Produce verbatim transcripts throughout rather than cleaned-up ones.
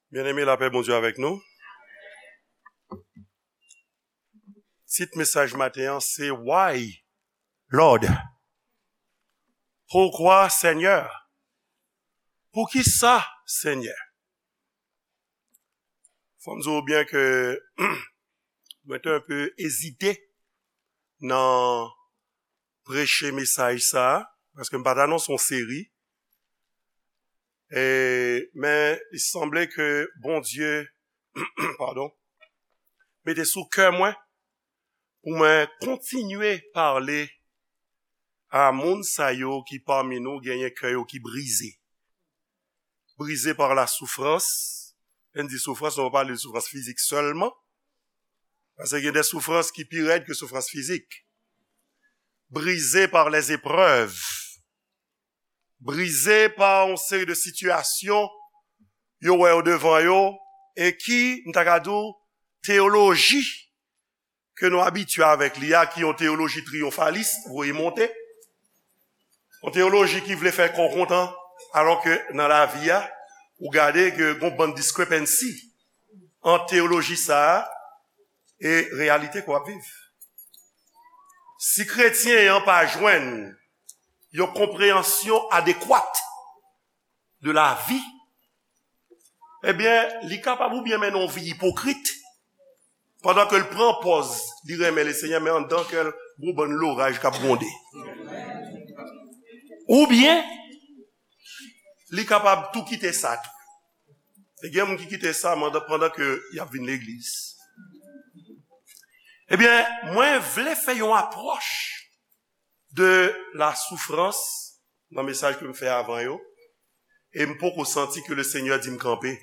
Byeneme, lapè Bondye avèk nou. Tit mesaj maten an se Why, Lord? Poukwa, Senyè? Poukisa, Senyè? Fò m di w byen ke mwen te enpe ezite nan preche mesaj sa a, paske m pa t anonse yon seri. E, men, li sanble ke Bondye, padon, mete sou kè mwen pou mwen kontinye pale a moun sa yo ki pami nou genyen kè yo ki brize. Brize pa la soufrans. Lè n di soufrans, nou pa pale de soufrans fizik sèlman. Paske gen de soufrans ki pi rèd ke soufrans fizik. Brize pa lèzeprèv. Brize pa yon seri de sitiyasyon yo wè yo devan yo e ki, m ta ka di w, teyoloji ke nou abitye avèk li a, ki yon teyoloji triyonfalis, voye monte. Yon teyoloji ki vle fè kò kontan, alò ke nan lavi a, ou gade ke gon bann discrepancy ant teyoloji sa a e reyalite ke w ap viv. Si kretyen an pa jwenn yon konpreyansyon adekwat de lavi, ebyen, li kapab oubyen mennen yon vi ipokrit, pandan ke l pran pòz li renmen Lesenyè, men anndan kè l gon bann loraj k ap gwonde. Oubyen, li kapab tou kite sa tou. E gen moun ki kite sa pandan, pandan ke y ap vin legliz. Ebyen, mwen vle fè yon apwòch de la soufrans nan mesaj ke m fè avan yo, e m poko santi ke Lesenyè di m kanpe.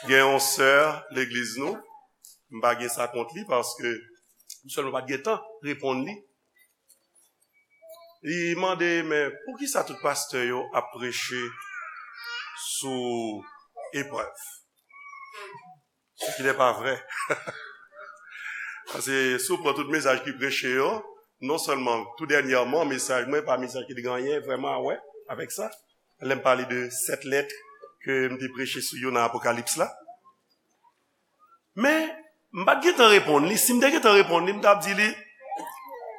Gen yon sè legliz nou, m pa gen sa kont li paske m sèlman pa t gen tan reponn li. Li mande, men poukisa tout pastè yo ap preche sou eprèv? Ce qui n'est pas vrai. Paske si w pran tout mesaj ki preche yo, non sèlman tou dènyèman, mesaj mwen pa mesaj ki te gen anyen vrèman a wè avèk sa. Lè m pale de sèt lèt ke m te preche sou yo nan Apokalips la. Men, m pa t gentan reponn li. Si m te gentan reponn li, m t ap di li,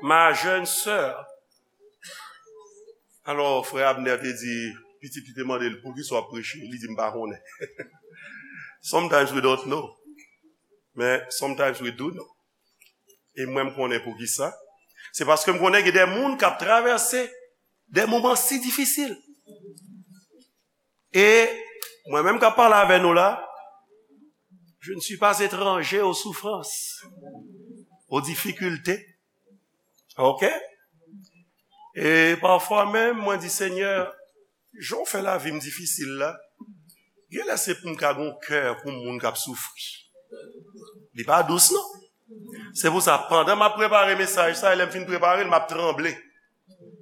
ma jeune sœur. Alò, frè Abner te di, pitit li te mande l, poukisa w ap preche? Li di, m pa konnen. Sometimes we don't know. Men, sometimes we do know. E mwen, m konnen poukisa. Se paske m konnen gen de moun k ap travèse de moman si difisil. E mwen menm k ap pale avè nou la, je ne suis pas étranger aux souffrances, aux difficultés. Ok? E pafwa menm, mwen di, Senyè, jan w fè lavi m difisil la, gen lè se pou m ka gon kè pou moun k ap soufri. Li pa dous, non. Se pou sa, pandan m ap prepare mesaj sa, e lè m fin prepare l, m ap tranble.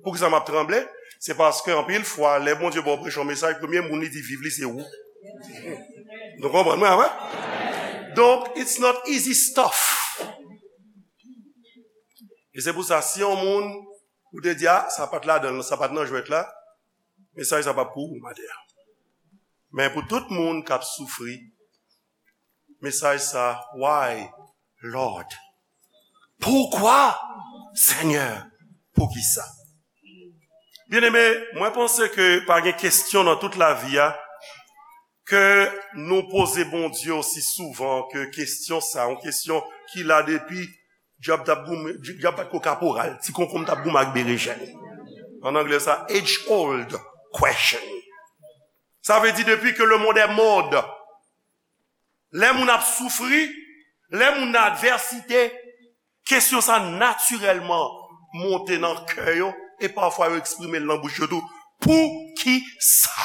Poukisa m ap tranble? Se paske anpil fwa, lè Bondye ba w preche yon mesaj, premye moun li di viv li se ou. Nou konprann mwen, wi? Donk, it's not easy stuff. E se pou sa, si yon moun, ou te di, a, sa pa t ladan l, sa pa t nan jwèt la, mesaj sa p ap pou ou maten an. Men pou tout moun k ap soufri, mesaj sa, why, Lord? Poukwa, Senyè? Poukisa? Byeneme, mwen panse ke pa gen kesyon nan tout lavi a ke nou poze Bondye osi souvan ke kesyon sa, yon kesyon ki la depi dyab t ap goumen, dyab bat ko kaporal, ti konkonm t ap goumen ak berejèn. An anglè sa, age old question. Sa vle di depi ke le monde est monde, lè moun ap soufri, lè moun nan advèsite, kesyon sa natirèlman monte nan kè yo, e pafwa yo eksprime l nan bouch yo tou. Poukisa?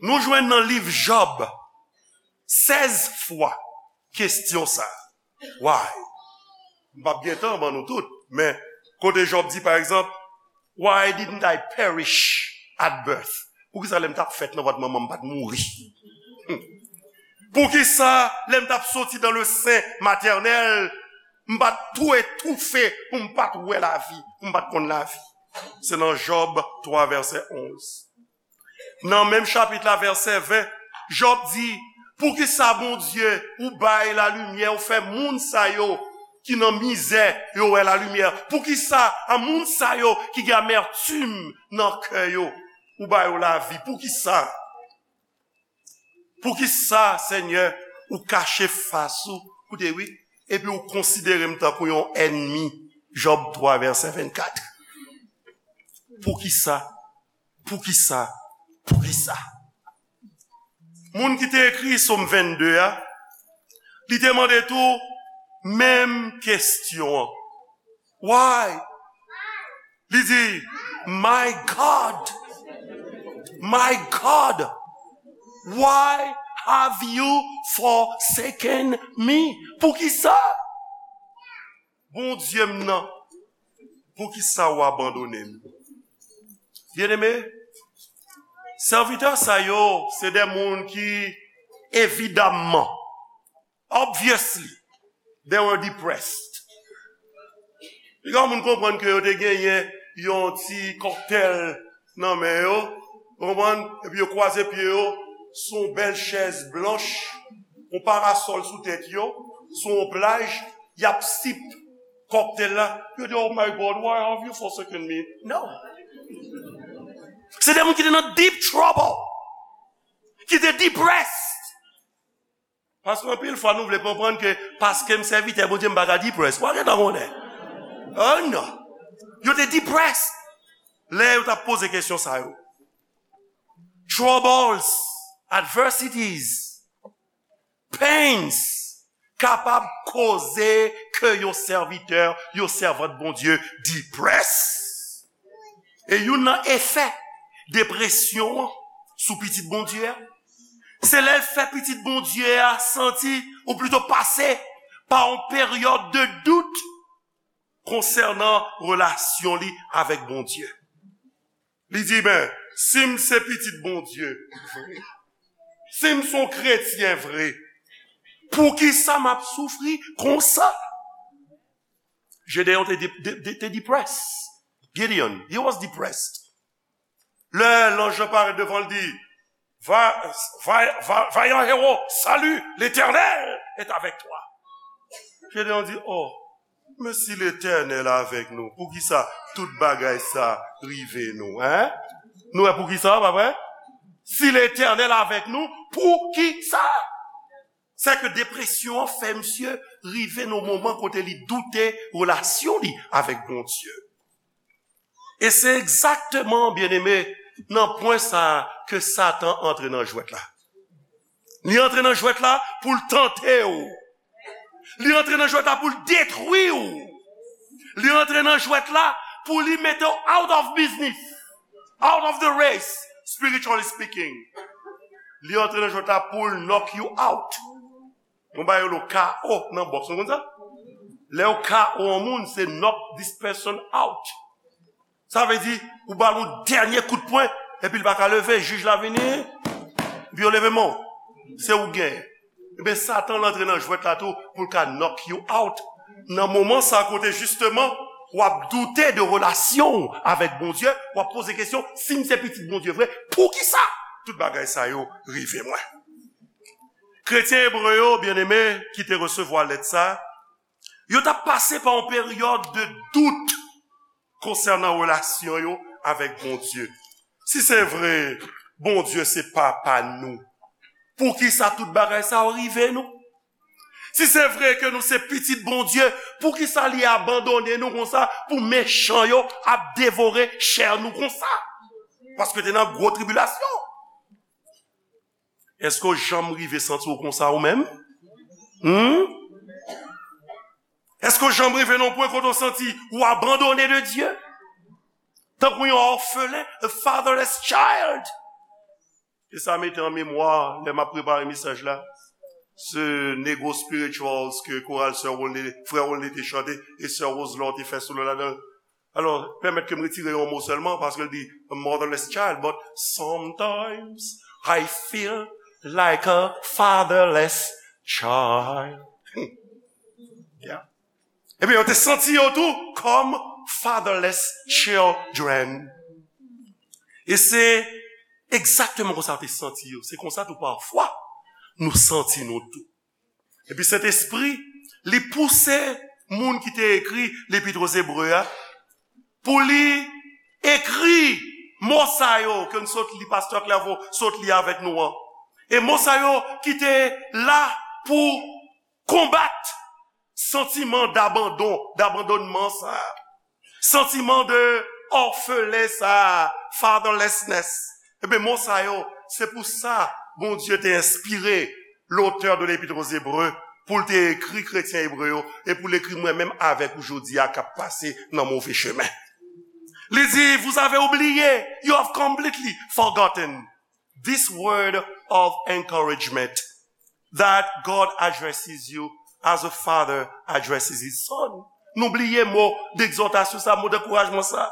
Nou jwenn nan liv Jòb sèz fwa kesyon sa. Why? M p ap gen tan ban nou tout, men kote Jòb di, pa egzanp, why didn't I perish at birth? Poukisa lè m t ap fèt nan vant manman m, m pa t mouri? Poukisa lè m t ap soti dans le sein maternel, m pa t tou etoufe pou m pa t wè lavi, pou m pa t konn lavi? Se nan Jòb twa vèsè onz. Nan menm chapit la, vèsè ven, Jòb di, poukisa, Bondye, ou bay lalimyè, ou fè moun sa yo ki nan mizè, yo wè lalimyè? Poukisa, a moun sa yo ki gen amètim nan kè yo, ou ba yo lavi? Poukisa? Poukisa, Senyè, ou kache fas ou, koute wi, epi ou konsidere m tankou yon ènmi? Jòb twa, vèsè vennkat. Poukisa? Poukisa? Poukisa? Moun ki te ekri Sòm vennde a, li te mande tou menm kesyon an. Why? Li di, "My God, my God, why have you forsaken me?" Poukisa? Bondye m nan, poukisa w abandone m? Byeneme, sèvitè sa yo, se de moun ki, evidamman, obviously, they were depressed. Piga moun konprann ke yo te genyen yon ti kòktèl nan men yo, ou konprann? Epi yo kwaze pye yo sou yon bèl chèz blanch, yon parasòl sou tèt yo, sou yon plaj, y ap sip kòktèl la. Yo di, "Oh my God, why have you forsaken me?" No. Se de moun ki te nan deep trouble, ki te depressed. Paske anpil fwa nou vle konprann ke paske m sèvitè Bondye, m pa ka depressed. Ou pa gentan konnen. Oh non. Yo te depressed lè yo t ap poze kesyon sa yo. Troubles, adversities, pains kapab koze ke yon sèvitè, yon sèvant Bondye depressed. E youn nan efè depresyon an sou pitit Bondye a, se lè l fè pitit Bondye a santi, ou plito pase pa yon peryòd de dout konsènan relasyon li avèk Bondye. Li di, "Ben, si m se pitit Bondye vre, si m se yon kretyen vre, poukisa m ap soufri konsa?" Jedeyon te, de, de, de, te depressed. Gideon, he was depressed. Lè lanj lan parèt devan l, di, "Va, va, va, vayan ewo, salut, l'Éternel est avec toi." Jedeyon di, "Oh, men si Letènèl avèk nou, poukisa tout bagay sa rive nou, en?" Nou wè poukisa, pa vre? Si Letènèl avèk nou, poukisa? Sèke depresyon an fè misye rive nan moman kote li doute relasyon li avèk Bondye. E se egzakteman, byeneme, nan pwen sa a ke Satan antre nan jwèt la. Li antre nan jwèt la pou l tante w. Li antre nan jwèt la pou l detwi w. Li antre nan jwèt la pou li mete w out of business, out of the race, spiritually speaking. Li antre nan jwèt la pou l knock you out. Yon bagay yo rele K O nan bòks, nou konn sa? Lè yo K O yon moun, se knock this person out. Sa vle di, ou ba l yon dènye kout pwen, epi l pa ka leve, jij la vini, epi yo leve men w. Se ou k genyen. Ebyen, Satan antre nan jwèt la tou pou l ka knock you out. Nan moman sa kote, jisteman, w ap doute de relasyon w avèk Bondye, w ap poze kesyon, "Si m se pitit Bondye vre, poukisa tout bagay sa yo rive mwen?" Kretyen ebre yo, byeneme, ki te resevwa lèt sa, yo t ap pase pa yon peryòd de dout konsènan relasyon yo avèk Bondye. Si se vre, Bondye se papa nou, poukisa tout bagay sa yo rive nou? Si se vre ke nou se pitit Bondye, poukisa li abandone nou konsa pou mechan yo ap devore chè nou konsa? Paske te nan gwo tribilasyon. Èske w janm rive santi w konsa ou menm? Hmm? Èske w janm rive nan yon pwen kote w santi ou abandone de Dye? Tankou yon òfelen, a fatherless child. E sa mete an memwa, lè m ap prepare mesaj la, se Negro Spirituals ke koral sè Rolne, frè Rolne te chante, e sè Roselon te fè solo ladan l. Alò, pèmèt ke m retire yon mo sèlman, paske l di, "A motherless child, but sometimes I feel like a fatherless child." Yeah. Ebyen, yo te santi yo tou kòm fatherless children. E se egzakteman konsa yo te santi yo. Se konsa tou pafwa nou santi nou tou. Epi Sentespri, li pouse moun ki te ekri Lepit Ozebre a pou li ekri mo sa yo ke n sot li, Pastè Clairvaux sot li avèk nou an. E mo sa yo ki te la pou konbat santiman dabandon, dabandonnman sa a. Santiman de òfelen sa a, fatherlessness. Ebyen, mo sa yo, se pou sa Bondye te enspire l'auteur de l'Épître aux Hébreux pou l te ekri kretyen ebre yo e pou l ekri mwen menm avèk ou jodi a k ap pase nan move chemen. Li di, vous avez oublié, you have completely forgotten this word of encouragement that God addresses you as a father addresses his son. Nou bliye mo degzòtasyon sa, mo dankourajman sa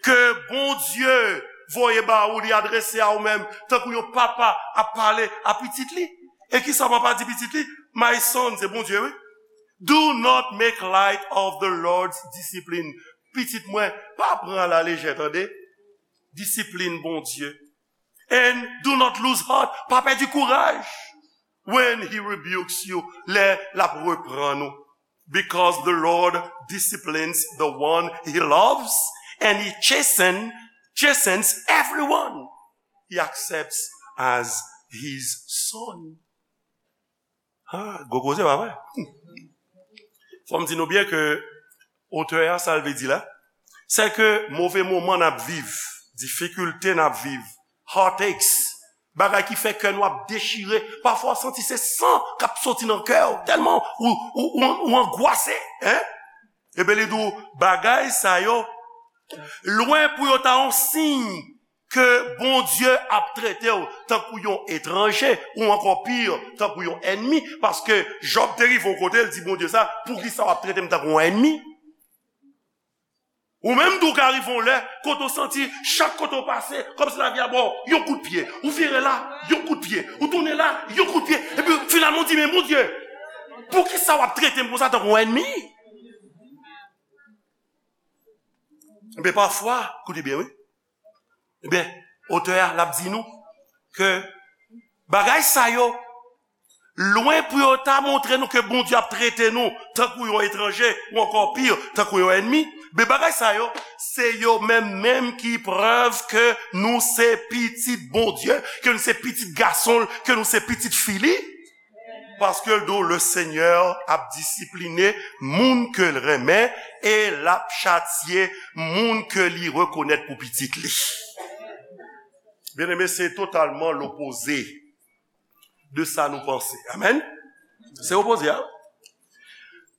ke Bondye voye ba ou, li adrese a ou menm, tankou yon papa ap pale a pitit li. E kisa papa di pitit li? My son, se Bondye, wi. Do not make light of the Lord's discipline. Pitit mwen, pa pran alalejè, tande. Disiplin Bondye. And do not lose heart. Pa pèdi kouraj. When he rebukes you, lè l ap reprann ou. Because the Lord disciplines the one he loves, and he chasten, chastens everyone he accepts as his son. Ah, gwo koze, pa vre? Fò m di nou byen ke otè a, sa l vle di la, se ke move moman n ap viv, difikilte n ap viv, heartaches, bagay ki fè kè nou ap dechire, pafwa w santi se san k ap soti nan kè w, tèlman ou, ou, ou, ou angwase, en? Ebyen, li di w, bagay sa yo, lwen pou yo ta yon siy ke Bondye ap trete w tankou yon etranje, ou ankò pi, tankou yon ènmi, paske Jòb te rive yon kote, l di Bondye sa, poukisa w ap trete m tankou yon ènmi? Ou menm tou ka rive yon lè, kote w santi, chak kote w pase, kòmsi lavi a ba w yon kout pye. Ou vire la, yon kout pye. Ou tounen la, yon kout pye. Epi finalman, w di, men Bondye, poukisa w ap trete m konsa tankou yon ènmi? Ebyen, pafwa, koute byen, wi. Ebyen, otè a, l ap di nou ke bagay sa yo, lwen pou yo ta montre nou ke Bondye ap trete nou tankou yon etranje, ou ankò pi, tankou yon ènmi, men bagay sa yo, se yo menm menm ki prèv ke nou se pitit Bondye, ke nou se pitit gason l, ke nou se pitit fi li. Paske l di w, le Senyè ap disipline moun ke l renmen e l ap chatye moun ke li rekonèt pou pitit li. Byeneme, se totalman lopoze de sa nou panse. Amèn? Se opoze a.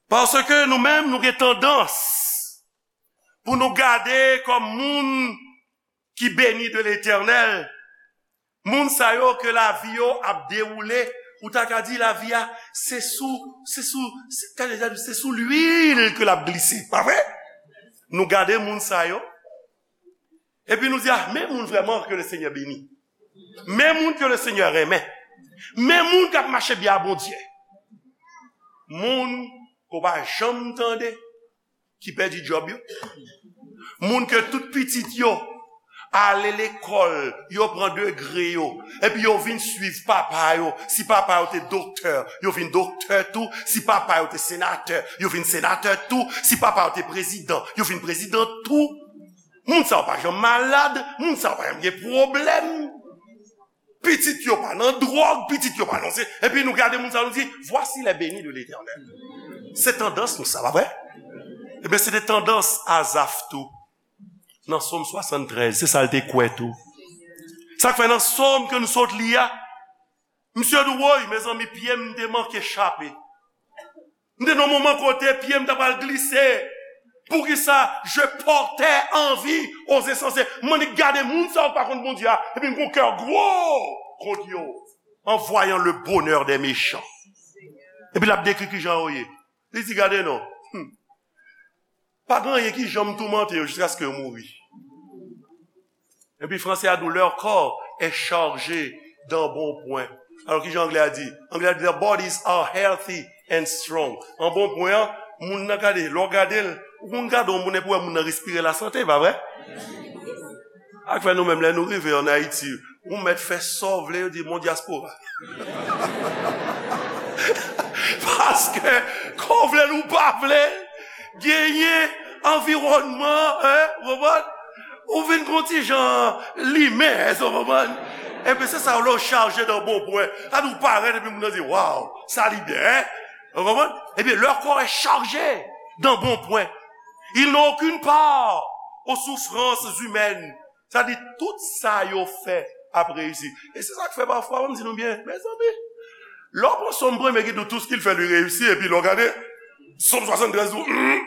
Paske nou menm, nou gen tandans pou nou gade kòm moun ki beni de Letènèl, moun sa yo ke lavi yo ap dewoule, ou ta ka di lavi a, se sou, se sou, se, se sou lwil ke l ap glise, pa vre? Nou gade moun sa yo, epi nou di, ah, men moun vrèman ke le Senyè beni. Men moun ke le Senyè renmen. Men moun k ap mache byen a Bondye. Moun ke w pa janm tande ki pèdi djòb yo. Moun ke tout pitit yo ale lekòl, yo pran degre yo, epi yo vin swiv papa yo. Si papa yo te doktè, yo vin doktè tou. Si papa yo te senatè, yo vin senatè tou. Si papa yo te prezidan, yo vin prezidan tou. Moun sa yo pa janm malad, moun sa yo pa janm gen pwoblèm. Pitit yo pa nan dwòg, pitit yo pa nan se. Epi nou gade moun sa, nou di, voici les bénis de l'Éternel. Se tandans nou sa, pa vre? Ebyen, se te tandans Azaf tou. Nan Sòm swasanntrèz, se sa l te kwè tou. Sa k fè nan Sòm ke nou sot li a, misye di, woy, mezanmi, pye m te manke chape. M te nan moman kote pye m ta pral glise. Poukisa je portais envie aux insensés? M annik gade moun sa yo k pa konn Bondye a, epi m gon kè gwo kont yo, en voyant le bonheur des méchants. Epi l ap dekri kijan yo ye. Li di, gade non. Hmm. Pa gen anyen ki janm toumante yo jiskaske yo mouri. Epi franse a di, leur corps est chargé d'embonpoint. Alò, kijan anglè a di? Anglè a di, their bodies are healthy and strong. Anbonpwen an, moun nan gade, lè w gade l, ou konn gade yon moun epi w wè moun nan respire lasante, pa vre? Ak fè nou menm, lè nou rive ann Ayiti, ou mèt fè sa w vle, yo di, "Mon dyaspora." Paske, ke w vle l ou pa vle, genyen anviwònman, hein, ou konprann? Ou vin gon ti jan limen, hein, ou konprann? Epi se sa, lè w chaje nan bon pwen. Sa di w parèt, epi moun nan di, "Waw, sa li byen, hein?" Ou konprann? Epi lè kò est chargé dans bon point, il n'a aucune part aux souffrances humaines. Sa di, tout sa yo fè ap reyisi. E se sa k fè pafwa, ban m di nou byen, mezanmi, lè w pran Sòm premye ki di w, tout ce qu'il fait lui réussit, epi lè w gade Sòm swasanntrèz di w, hmm,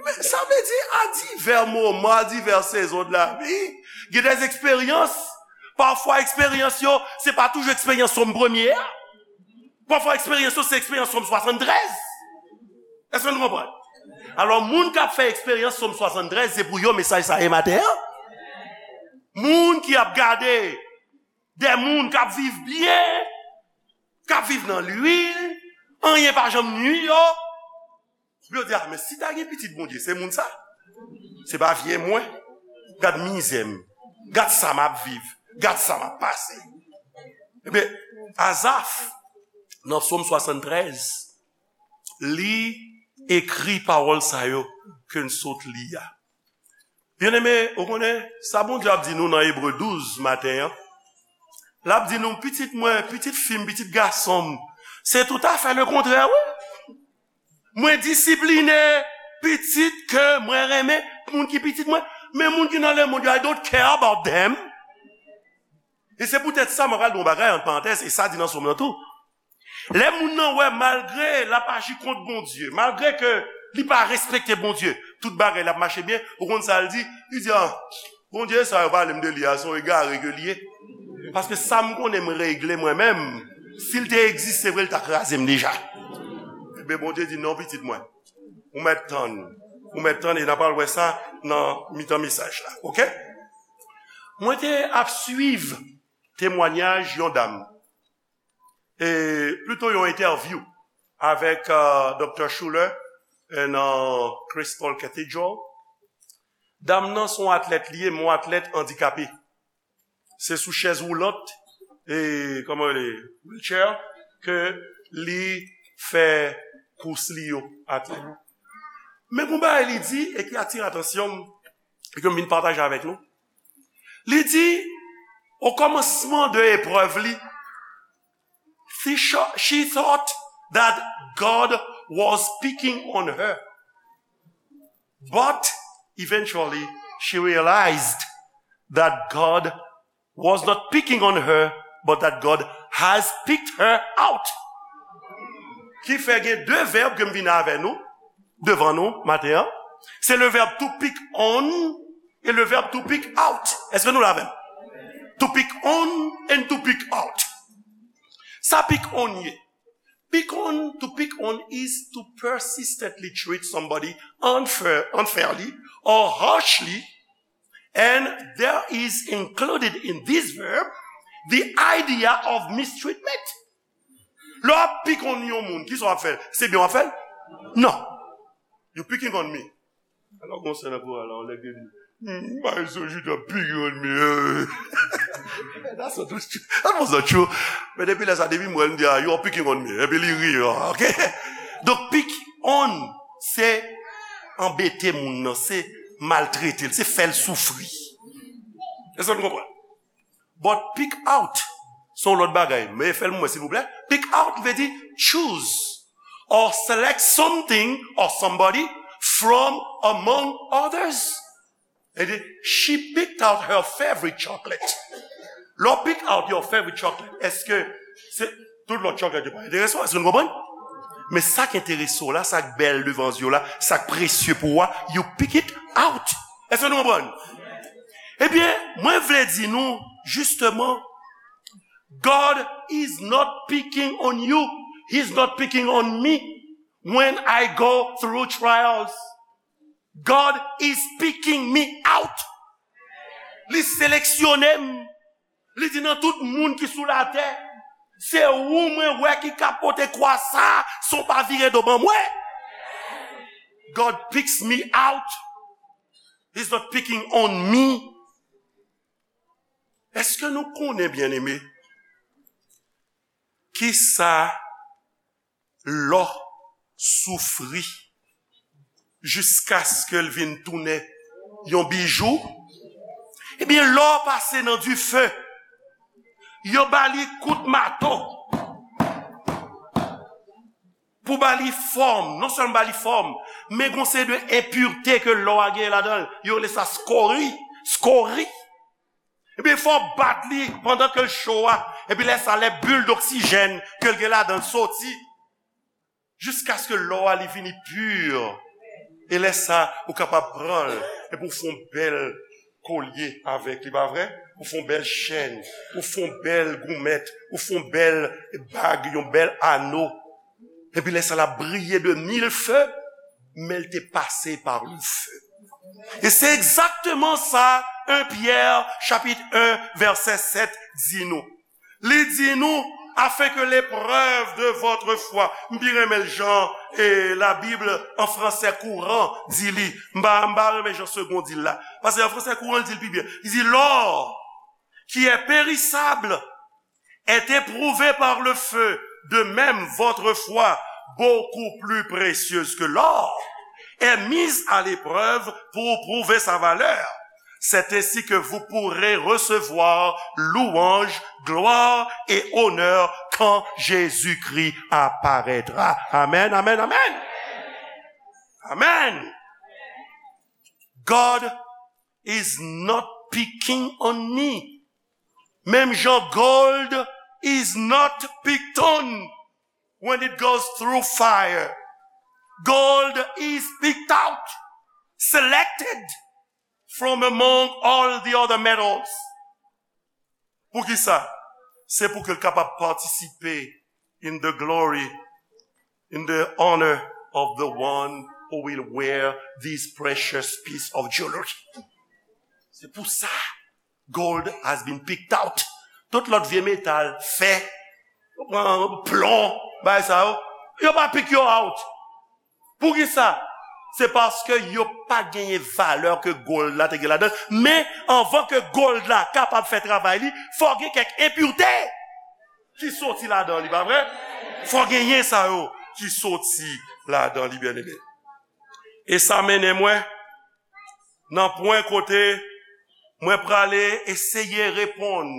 men sa vle di, à divers moments, à diverses saisons de la vie, gen des expériences, pafwa eksperyans yo, se pa toujou eksperyans Sòm premye a. Pafwa eksperyans yo, se eksperyans Sòm swasanntrèz. Èske nou konprann? Alò, moun k ap fè eksperyans Sòm swasanntrèz, se pou yo mesaj sa ye maten an. Moun ki ap gade de moun k ap viv byen, k ap viv nan lwil, anyen pa janm nwi yo. Yo di, "Ah, men si ta gen pitit Bondye, se moun sa. Se pa vye mwen. Gad mizè m. Gad sa m ap viv. Gad sa m ap pase." Ebyen, Azaf, nan Sòm swasanntrèz, li ekri pawòl sa yo ke n sot li a. Byeneme, ou konnen, sa Bondye ap di nou nan Ebre douz maten an, l ap di nou, "Pitit mwen, pitit fi m, pitit gason m, se toutafè lekontrè, wi. Mwen disipline pitit ke mwen renmen, moun ki pitit mwen, men moun ki nan lemonn yo, I don't care about them." E se poutèt sa, mwen pral di yon bagay, an parantèz, e sa di nan Sòm nan tou. Lè moun nan wè, malgre l ap aji kont Bondye, malgre ke li pa respekte Bondye, tout bagay l ap mache byen, ou konn sa l di? Li di, "Ah, Bondye sa yo pale m de li a, se yon egare ke li ye. Paske sa m konnen m regle mwen menm, si l te egziste vre, l ta kraze m deja." Ebyen, Bondye di, "Non, pitit mwen, ou mèt tann, ou mèt tann, e n a pral wè sa nan mitan mesaj la, oke?" Mwen te ap swiv temwanyaj yon dam, e plito yon entèvyou avèk, euh, Doktè Schuller, euh, nan Crystal Cathedral. Dam nan se yon atlèt li ye, men yon atlèt andikape. Se sou chèz woulant, e, kòman rele, wheelchair, ke li fè kous li yo, atlèt. Men gon bagay li di, e ki atire atansyon m, e ke m vin pataje avèk nou. Li di, o kòmansman de eprèv li, she, she thought that God was picking on her. But eventually, she realized that God was not picking on her, but that God has picked her out. Ki fè gen de vèb ke m vin avè nou, devan nou, maten an. Se le vèb to pick on e le vèb to pick out. Èske nou la avè m? To pick on and to pick out. Sa pick on ye? Pick on, to pick on is to persistently treat somebody unfair, unfairly or harshly, and there is included in this verb the idea of mistreatment. Lè w ap pick on yon moun, kisa w ap fè? Se byen w ap fè l? Non. You picking on me. Alò, gon sè nan koral la, yon nèg te di, "Hmm, m pa janm sonje w t ap picking on me." That's not true. That was not true. Men depi lè sa, depi m wè l, m di, "Ah, you are picking on me." Epi li ri, ah, ok? Donk, pick on, se anbete moun nan, se maltrete l, se fè l soufri. Èske nou konprann? But pick out, se yon lòt bagay. Men fè l pou mwen, silvouplè. Pick out vle di choose or select something or somebody from among others. E di, she picked out her favorite chocolate. Lè w pick out your favorite chocolate, èske se tout lòt chocolate yo pa enterese w? Èske nou konprann? Men sa k enterese w la, sa k bèl devan zye w la, sa k presye pou ou a, you pick it out. Èske nou konprann? Ebyen, mwen vle di nou, jisteman, God is not picking on you. He's not picking on me when I go through trials. God is picking me out. Li seleksyone m. Li di, "Nan tout moun ki sou latè, se ou mwen wè ki ka pote kwa sa, san w pa vire do ban mwen." God picks me out. He's not picking on me. Èske nou konnen, byeneme, kisa lò soufri jiskaske l vin tounen yon bijou? Ebyen, lò pase nan dife, yo ba li kout mato pou ba li fòm, non sèlman ba li fòm, men gon seri de enpirte ke lò a genyen ladan l, yo rele sa skori, skori. Ebyen, fò w bat li pandan ke l cho a. Epi lè sa, lè bil doksijèn ke l gen ladan l soti, jiskaske lò a li vini pi. E lè sa, ou kapab pran l, epi w fè yon bèl kolye avèk li, pa vre? Ou fè yon bèl chèn, ou fè yon bèl goumèt, ou fè yon bèl bag, yon bèl ano. Epi lè sa l ap briye de mil fe, men l te pase pa le feu. E se egzakteman sa, en Pyè, chapit en, vèsè sèt, di nou. Li di nou, afin que l'épreuve de votre foi, m pi renmen l jan, e, la Bible en français courant di li. M pa, m pa renmen jan Segond di l la. Paske en français courant, l di l pi byen. Li di, l'or, qui est périssable, est éprouvée par le feu, de même votre foi, beaucoup plus précieuse que l'or, est mise à l'épreuve pour prouver sa valeur. C'est ainsi que vous pourrez recevoir louange, gloire et honneur quand Jésus-Christ apparaîtra. Amen, amen, amen. Amen. God is not picking on me. Menm jan gold is not picked on when it goes through fire. Gold is picked out, selected from among all the other metals. Poukisa? Se pou ke l kapab patisipe in the glory, in the honor of the one who will wear this precious piece of jewelry. Se pou sa, gold has been picked out. Tout lòt vye metal, fè, plon, bagay sa yo, yo pa pick yo out. Poukisa? Se paske yo pa genyen valè ke gold la te gen ladan. Men, anvan ke gold la kapab fè travay li, fò gen kèk enpirte ki soti ladan li, pa vre? Fò genyen sa yo ki soti ladan li, byeneme. E sa mennen mwen nan pwen kote mwen prale eseye reponn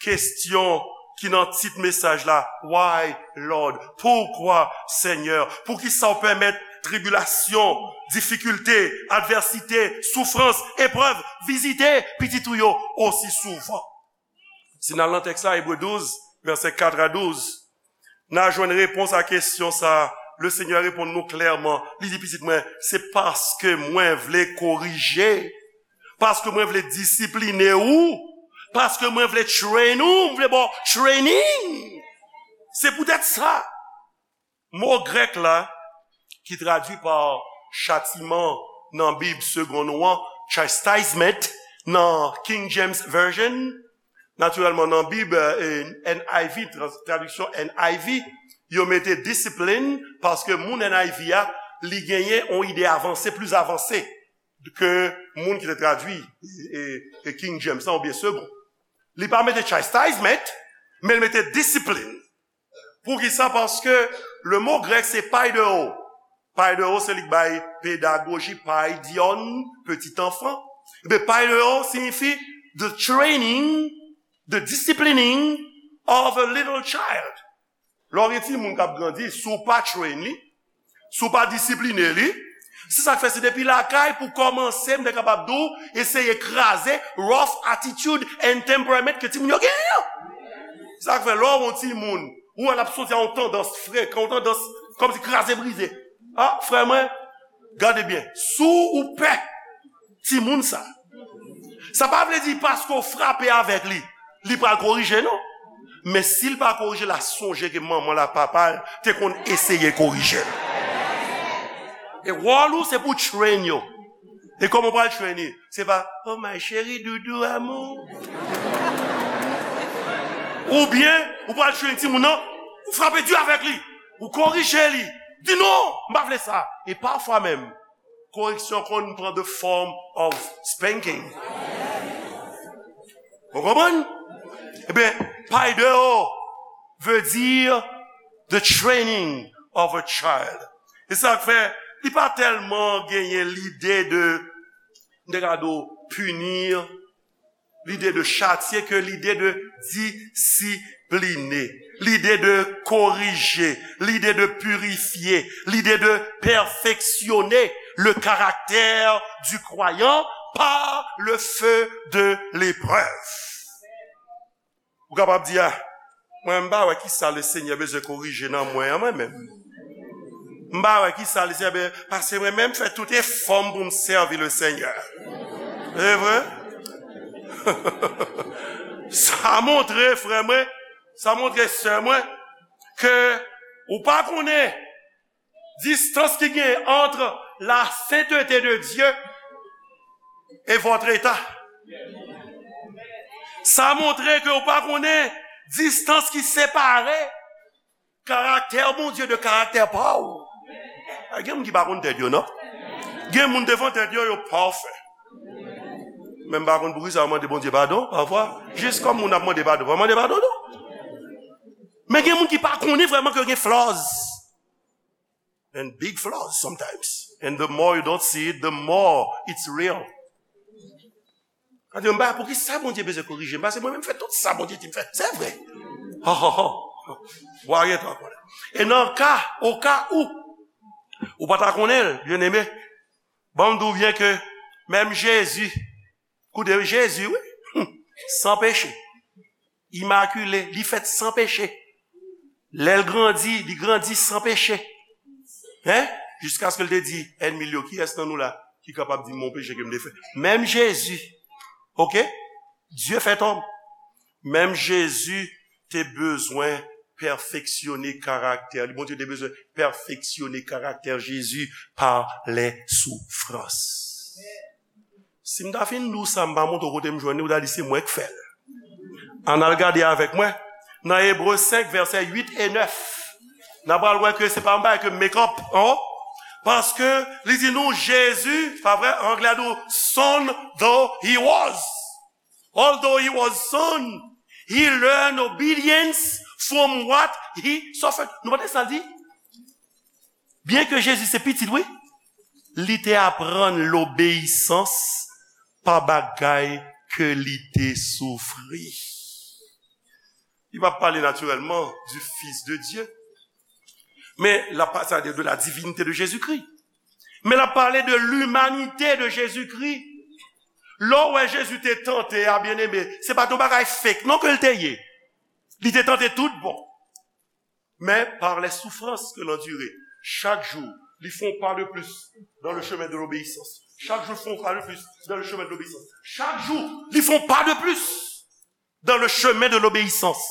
kesyon ki nan tit mesaj la, Why, Lord? Poukwa, Senyè? Poukisa w pèmèt tribilasyon, difikilte, advèsite, soufrans, eprèv vizite pitit ou yo osi souvan? Si n al nan tèks la, Ebre douz, vèsè kat a douz, n a jwenn repons a kesyon sa a. Lesenyè reponn nou klèman. Li di, pitit mwen, se paske mwen vle korije, paske mwen vle disipline ou, paske mwen vle train ou, mwen vle ba w training. Se poutèt sa. Mo grèk la, ki tradui pa chatiman nan Bib segonn ou an, chastisement, nan King James Version, natirèlman nan Bib, eh, N I V, trans-, tradiksyon N I V, yo mete discipline, paske moun N I V a, li genyen yon ide avanse, plis avanse ke moun ki te tradui, eh, eh, King James la, oubyen segonn. Li pa mete chastisement, men li mete discipline. Poukisa? Paske le mo grèk se paidewo. Paidewo se li k bay pedagoji, paidion, petit enfant. Ebyen, paidewo siyifi the training, the disciplining of a little child. Lè w gen timoun k ap grandi, si w pa train li, si w pa disipline li, se sa k fè se depi lakay pou kòmanse, m te kapab di w, eseye kraze rough attitude and temperament ke timoun yo genyen an. Sa k fè lè w wè yon timoun, ou wè l ap soti a yon tandans frekan, yon tandans kòmsi kraze brize. A, frè mwen, gade byen. Si w pè timoun sa, sa pa vle di paske w frape avèk li, li pral korije, non. Men si l pa korije, l a sonje ke manman l ak papa l te konn eseye korije l. E wòl ou, se pou w train yo. E kòman w pral train li? Se pa, "Oh, my chéri, doudou, amour." Oubyen, ou pral train timoun nan, ou frape di avèk li. Ou korije li. Di, "Non, m pa vle sa." E pafwa menm, koreksyon konn pran the form of spanking. Ou konprann? Ebyen, paideio veut dire the training of a child. E sa k fè, li pa tèlman genyen lide de, m te ka di w, pini, lide de chatye, ke lide de disipline, lide de korije, lide de pirifye, lide de pèfeksyone le caractère du croyant par le feu de l'épreuve. Ou kapab di, a, mwen, m pa wè kisa Lesenyè bezwen korije nan mwen an, mwen menm. M pa wè kisa Lesenyè bezwen, paske mwen menm fè tout efò m pou m sèvi Lesenyè. E vre? Sa montre, frè mwen, sa montre, sè mwen, ke ou pa konnen distans ki gen entre la sainteté de Dieu et votre état. Sa montre ke ou pa konnen distans ki separe karaktè Bondye de karaktè pa w. A, gen moun ki pa konn tèt yo, non. Gen moun devan tèt yo, yo pafè. Men m pa konn poukisa yo mande Bondye padon, pafwa. Jis kòm moun ap mande padon, pa mande padon, non. Men gen moun ki pa konnen vrèman ke gen flaws. And big flaws sometimes. And the more you don't see it, the more it's real. Sa di, m pa, poukisa Bondye bezwen korije m? Paske mwen menm fè tout sa Bondye di m fè. Se vre. Ho, ho, ho. Bwa gen tan konnen. E nan ka, o ka ou, ou pa ta konnen l, byeneme, ban m di w byen ke menm Jezi, koute, Jezi, wi, san peche. Imakile, li fèt san peche. Lè l grandi, li grandi san peche. Hein? Jiskaske l te di ènmi l yo, kiyès nan nou la ki kapab di m yon peche ke m te fè? Menm Jezi, oke? Dye fèt òm. Menm Jezi te bezwen pèfeksyone karaktè li. Bondye te bezwen pèfeksyone karaktè Jezi pa les souffrances. Si m ta fin di w sa, m pa montre w kote m jwenn li, ou ta di se mwen k fè l. Ann al gade avèk mwen nan Ebre senk, vèsè uit e nèf. N a pral wè ke se pa yon bagay ke m make up, an. Paske li di nou Jezi, pa vre, anglè a di w, son though he was. Although he was son, he learned obedience from what he suffered. Nou pa tande sa l di? Byen ke Jezi se pitit, wi, li te aprann lobeyisans pa bagay ke li te soufri. Li pa pale natirèlman du Fils de Dieu. Men l ap pa-, c'est-à-dire de la divinité de Jésus-Christ. Men l ap pale de l'humanité de Jésus-Christ. Lè w wè Jezi te tante a, byeneme, se pa t yon bagay fake non ke l te ye. Li te tante tout bon. Mais par les souffrances que l'enduré, chaque jour, li fè yon pa de plis dans le chemin de l'obéissance. Chak jou, li fè yon pa de plis dans le chemin de l'obéissance. Chak jou, li fè yon pa de plis dans le chemin de l'obéissance.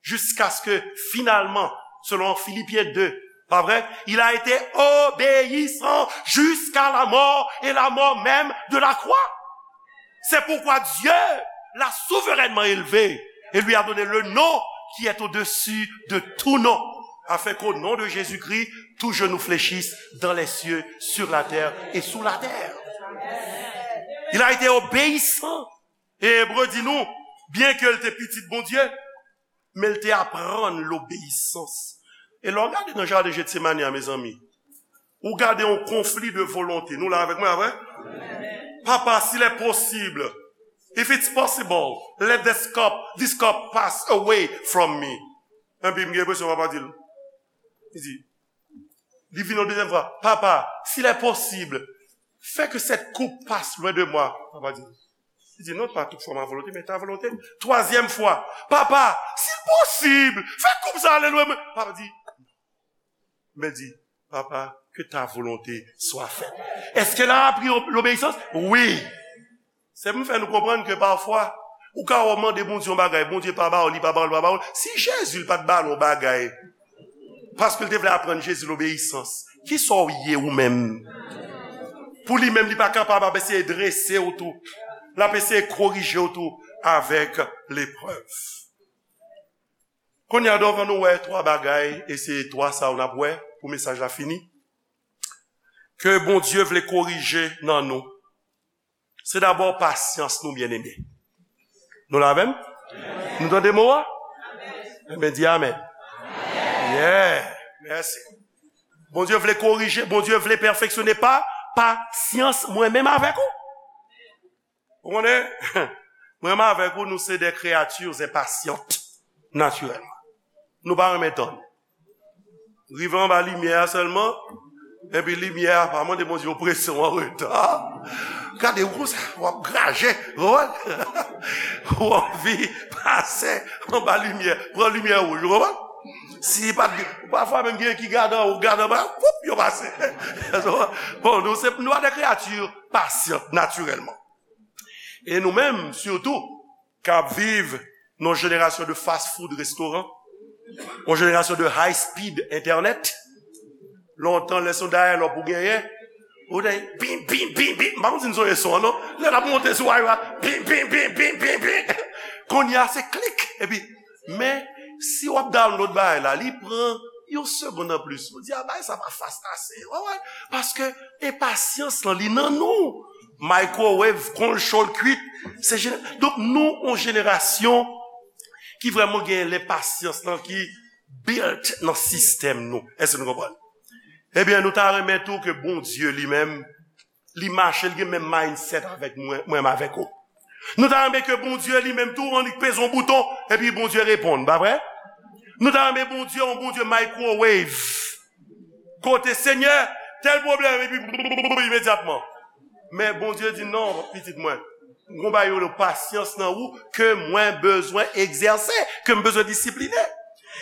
Jusqu'à ce que, finalement, selon Philippiens deux, pa vre? Il a été obéissant jusqu'à la mort et la mort même de la croix. C'est pourquoi Dieu l'a souverainement élevé et lui a donné le nom qui est au-dessus de tout nom, afin qu'au nom de Jésus-Christ, tout genou fléchisse dans les cieux, sur la terre et sous la terre. Il a été obéissant. E Ebre di nou, byen ke l te pitit Bondye, men l te aprann lobeyisans. E lè w gade nan jaden Jetsemani a, mezanmi, ou gade yon konfli de volonte. Nou la avèk mwen, pa vre? Papa, s'il est possible, if it's possible, let this cup, this cup pass away from me. Epi m gen enpresyon papa di l, li di, li vin yon dezyèm fwa, Papa, s'il est possible, fais que cette coupe passe loin de moi. Papa di, li di, non, pas toutefois ma volonté, mais ta volonté. Twazyèm fwa, Papa, s'il est possible, fè koup sa ale lwen mwen. Papa di, men di, Papa, que ta volonté soit faite. Est-ce que l a apri ob-, lobeyisans? Wi. Se pou m fè nou konprann ke pafwa, ou ka wè w mande Bondye yon bagay, Bondye pa ba w li, pa ba w li, pa ba w li. Si Jezi l pa t ba l yon bagay, paske l te vle aprann Jezi lobeyisans, kisa w ye ou menm? Pou li menm, li pa kapab ap eseye drese w tou. L ap eseye korije w tou avèk leprèv. Kounye a, devan nou wè twa bagay, e se twa sa yo n ap wè pou mesaj la fini, ke Bondye vle korije nan nou. Se dabò pasyans nou, byeneme. Nou la avè m? Nou tande mo a? Enben, di amèn. Yeah. Mèsi. Bondye vle korije, Bondye vle pèfeksyone pa pasyans mwen menm avèk ou. Ou konnen, mwen menm avèk ou, nou se de kreyati enpasyant, natirèlman. Nou pa renmen tann. Rive anba limyè a sèlman, epi limyè a pa mande Bondye yon presyon an reta. Gade ou konsa, w ap graje, ou konprann? Ou anvi pase anba limyè, pran limyè wouj, ou konprann? Si pa t, pafwa menm gen ki gade anwo, gade anba, woup, yo pase. Bon, nou se, nou pa de kreyati pasyant, natirèlman. E nou menm, sitou, k ap viv nan yon jenerasyon de fast food restoran, yon jenerasyon de high speed internet. Lontan, lè se yon dial-up ou genyen, ou te bim, bim, bim, bim. M pa konn si n sonje son an, non. Lè l ap monte sou waywa, bim, bim, bim, bim, bim, bim. Kounye a, se klik. Epi, men, si w ap download bagay la, li pran yon segonn anplis. Ou di, a, bagay sa pa fast ase. Ou konprann? Paske enpasyans lan, li nan nou. Microwave, konn cho l kwit. Se jene-, donk, nou, yon jenerasyon ki vrèman gen lenpasyans lan ki built nan sistèm nou. Èske nou konprann? Ebyen, nou ta renmen tou ke Bondye li menm, li mache, li gen menm mindset avèk mwen, mwen menm avèk ou. Nou ta renmen ke Bondye li menm tou, annik peze yon bouton, epi Bondye reponn, pa vre? Nou ta renmen Bondye, yon Bondye microwave. Kote, Senyè, tèl pwoblèm, epi imedyatman. Men Bondye di, non, pitit mwen, m gon bagay yo rele pasyans nan ou ke mwen bezwen egzèse, ke m bezwen disipline.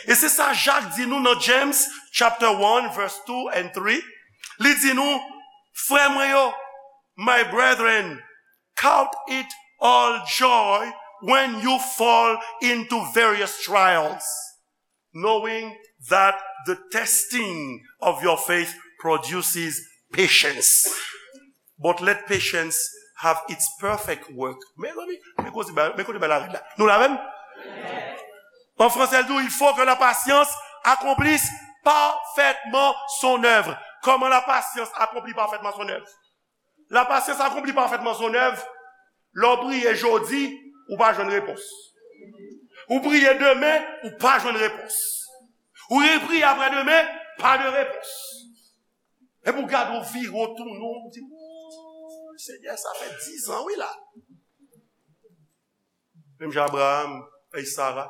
E se sa Jak di nou nan James chapter one, verse two and three. Li di nou, frè mwen yo, my brethren, count it all joy when you fall into various trials, knowing that the testing of your faith produces patience. But let patience have its perfect work. Mezanmi, men kote bagay la rèd la. Nou la menm? An fransè, l di, il faut que la patience accomplisse parfaitement son œuvre. Kòman la pasyans akonpli pafètman son èv? La pasyans akonpli pafètman son èv. Lè w priye jodi, ou pa jwenn repons. Ou priye demen, ou pa jwenn repons. Ou repriye apre demen, pa de repons. Epi w gade, w vire, w tounen, w di, "Wouy, Senyè, sa fè dizan, wi, la." Menm jan Abraham, ay Sara,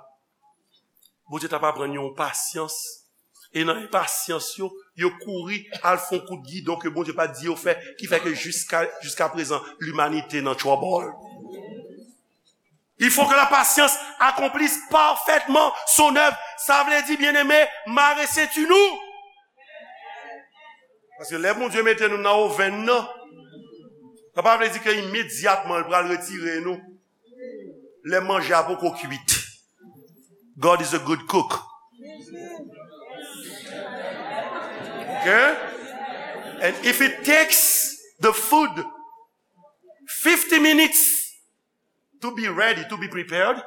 Bondye t ap aprann yo yon pasyans. E nan enpasyans yo, yo kouri al fè yon kout gidon ke Bondye pa t di yo fè, ki fè ke jiska, jiska prezan, limanite nan trouble. Il faut que la patience accomplisse parfaitement son œuvre. Sa vle di, byeneme, mare senti nou. Paske lè Bondye mete nou nan ovenn nan, sa pa vle di ke imedyatman l pral retire nou lè manje a poko kwit. God is a good cook. Okay? And if it takes the food fifty minutes to be ready, to be prepared,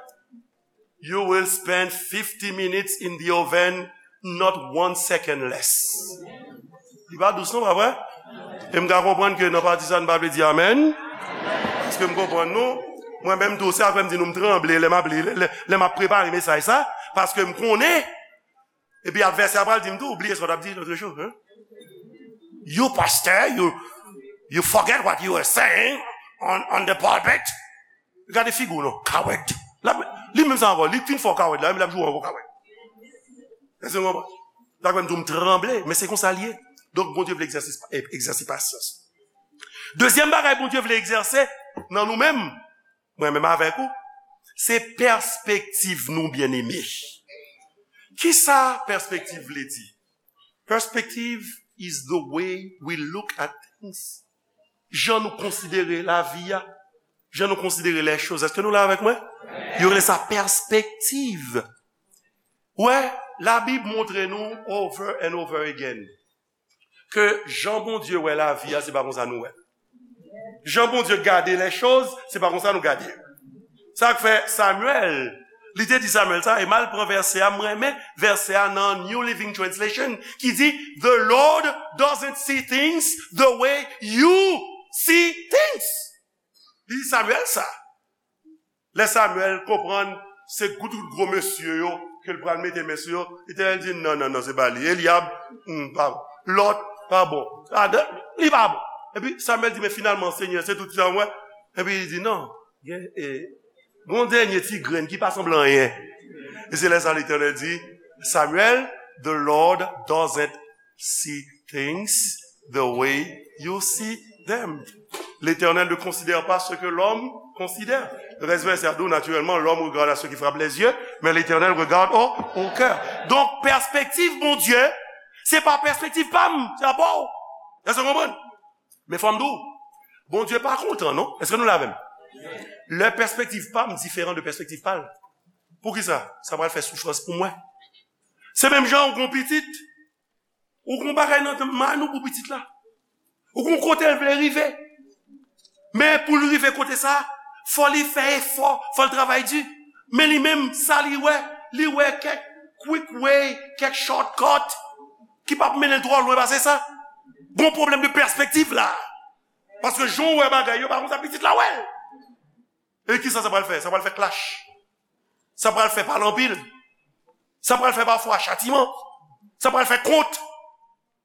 you will spend fifty minutes in the oven, not one second less. Li pa dous non, pa vre? E m ka konprann ke nan pati sa, n pa vle di amèn. Paske m konprann nou. Mwen menm tou, se apre m di nou m tranble lè m ap li, lè, lè, lè m ap prepare mesaj sa. Paske m konnen. Epi advèsè a pral di m tou, ou bliye sa w t ap di lòt jou, hein? You pastor, you, you forget what you were saying on, on the pulpit. Gade figi w non, coward. L ap, li menm sa ankò, li fin fè w coward la, li ap jwe w ankò coward. Èske w konprann? Dakò, m di w m tranble, men se konsa l ye. Donk, Bondye vle egzèse, egzèse pasyans. Dezyèm bagay Bondye vle egzèse nan nou menm, mwen menm avèk ou, se pèspektiv nou, byeneme. Kisa pèspektiv vle di? Perspective is the way we look at things. Jan nou konsidere lavi a, jan nou konsidere les choses. Èske nou la avèk mwen? Yo rele sa pèspektiv. Wè, Labib montre nou over and over again ke jan Bondye wè lavi a, se pa konsa nou wè l. Jan Bondye gade les choses, se pa konsa nou gade yo. Sa k fè Samuel, li te di Samuel sa, e m al pran vèsè a, m renmen vèsè a nan New Living Translation, ki di, "The Lord doesn't see things the way you see things." Li di Samuel sa. Lè Samyèl konprann se gwo, tout gwo mesye yo ke l pral mete men sou yo, Letènèl di, "Non, non, non, se pa li. Elyab, hmm, pa bon. Lòt, pa bon. Adan, li pa bon." Epi Samyèl di, "Men finalman, Senyè, se tout sa mwen." Epi li di, "Non, gen, e, gon dènye ti grenn ki pa sanble anyen." E se lè sa Letènèl di, "Samuel, the Lord doesn't see things the way you see them." L'Éternel ne considère pas ce que l'homme considère. Rès vèsè a di w, naturellement, l'homme regarde à ce qui frappe les yeux, mais l'Éternel regarde au, au cœur. Donk, pèspektiv Bondye, se pa pèspektiv pa m, se pa pa w. Èske w konprann? Men fò m di w, Bondye pa kontan, non? Èske nou la avè m? Lè pèspektiv pa m diferan de pèspektiv pa l. Poukisa? Sa pral fè soufrans pou mwen. Se menm jan ou gon pitit, ou gon bagay nan men ou pou pitit la. Ou gon kote l vle rive. Men pou l rive kote sa, fò li fè efò, fò l travay di. Men li menm, sa li wè, li wè kèk quick way, kèk shortcut ki p ap mennen l twò lwen pase sa. Gon pwoblèm de pèspektiv la. Paske jan w wè bagay yo, pa konsa pitit la wè l. E kisa sa pral fè? Sa pral fè clash. Sa pral fè pale anpil. Sa pral fè pafwa chatiman. Sa pral fè kont.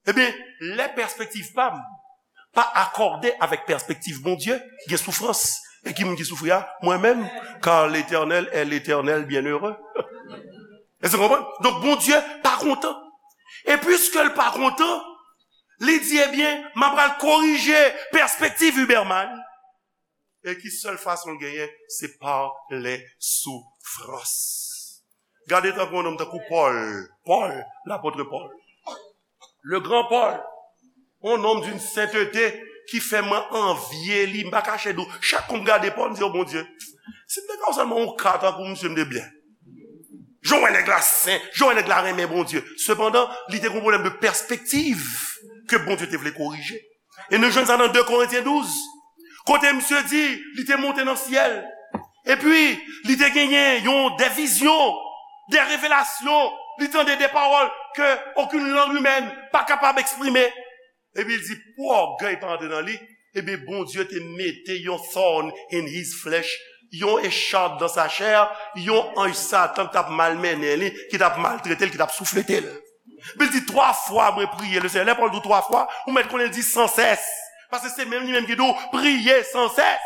Ebyen, lè pèspektiv pa m pa akòde avèk pèspektiv Bondye, gen soufrans. E ki moun ki soufri a? Mwen menm. Car l'Éternel est l'Éternel bienheureux. Èske w konprann? Donk, Bondye pa kontan. E piske l pa kontan, li di, ebyen, m ap pral korije pèspektiv Huberman. E ki sèl fason l genyen, se pa lè soufrans. Gade tankou yon nonm tankou Pòl. Pòl, lapòt Pòl. Le gran Pòl. Yon nonm d'une sainteté ki fè mwen anvye li. M pa kache di w, chak kou m gade Pòl, m di, "O Bondye, si m te ka w sèlman yon ka tankou misye, m te byen." Jan w wè nèg la sen, jan w wè nèg la renmen Bondye. Sepandan, li te gen yon pwoblèm de pèspektiv ke Bondye te vle korije. E nou jwenn sa nan de Korentyen douz, kote misye di, li te monte nan syèl. Epi, li te genyen yon, de vizyon, de revelasyon. Li tande de pawòl ke okenn lang imèn pa kapab eksprime. Epi, li di, pou ògèy pa antre nan li, ebyen, Bondye te mete yon thorn in his flesh, yon echarp dans sa chair, yon anj Satan ki t ap malmennen li, ki t ap maltrete l, ki t ap souflete l. Epi l di, "Twa fwa mwen priye le Senyè." Lè Pòl di w twa fwa, ou mèt konnen l di sans cesse. Paske se menm li menm ki di w, "Priye sans cesse."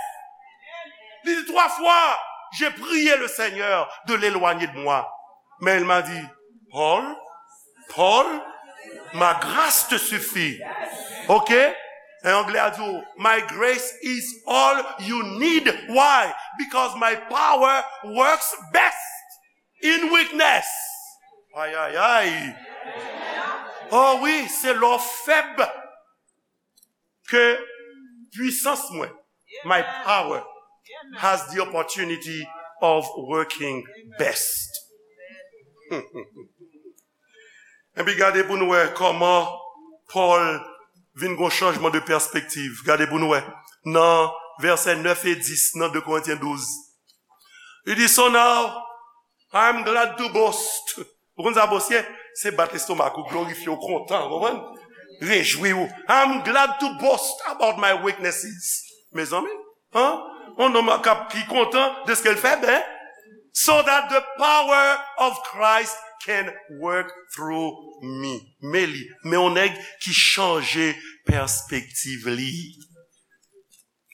Li di, "Twa fwa, j'ai prié le Seigneur de l'éloigner de moi. Mais il m'a dit, Paul, Paul, ma grâce te suffit." Ok? En anglè a di w, "My grace is all you need." Why? Because my power works best in weakness. Ay, ay, ay. Oh wi, se lè w fèb ke pwisans mwen, my power, has the opportunity of working best. Epi gade pou nou wè kòman Pòl vin gon chanjman de pèspektiv. Gade pou nou wè. Nan vèsè nèf e dis nan de Korentyen douz. Li di, "So now, I'm glad to boast." Ou konn sa boast ye? Se bat lestomak ou, glorifye w, kontan, konprann? Rejwi w. "I'm glad to boast about my weaknesses." Mezanmi, hein? On nonm k ap, ki kontan de ce qu'il fait, hein? "So that the power of Christ can work through me." Men li, men on nèg ki chanje pèspektiv li.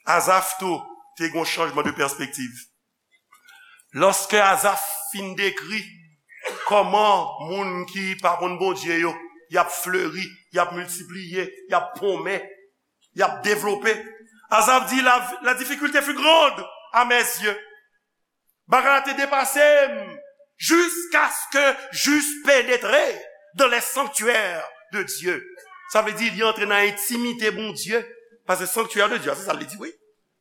Azaf tou te gen yon chanjman de pèspektiv. Lòske Azaf fin dekri kòman moun ki pa konn Bondye yo, y ap fleri, y ap miltipliye, y ap ponmen, y ap devlope, Azaf di, "La, la difficulté fut grande à mes yeux." Bagay la te depase m, "jusqu'à ce que j'eusse pénétré dans les sanctuaires de Dieu." Sa vle di, li antre nan entimite Bondye. Paske sanctuaire de Dieu, se sa l di, wi.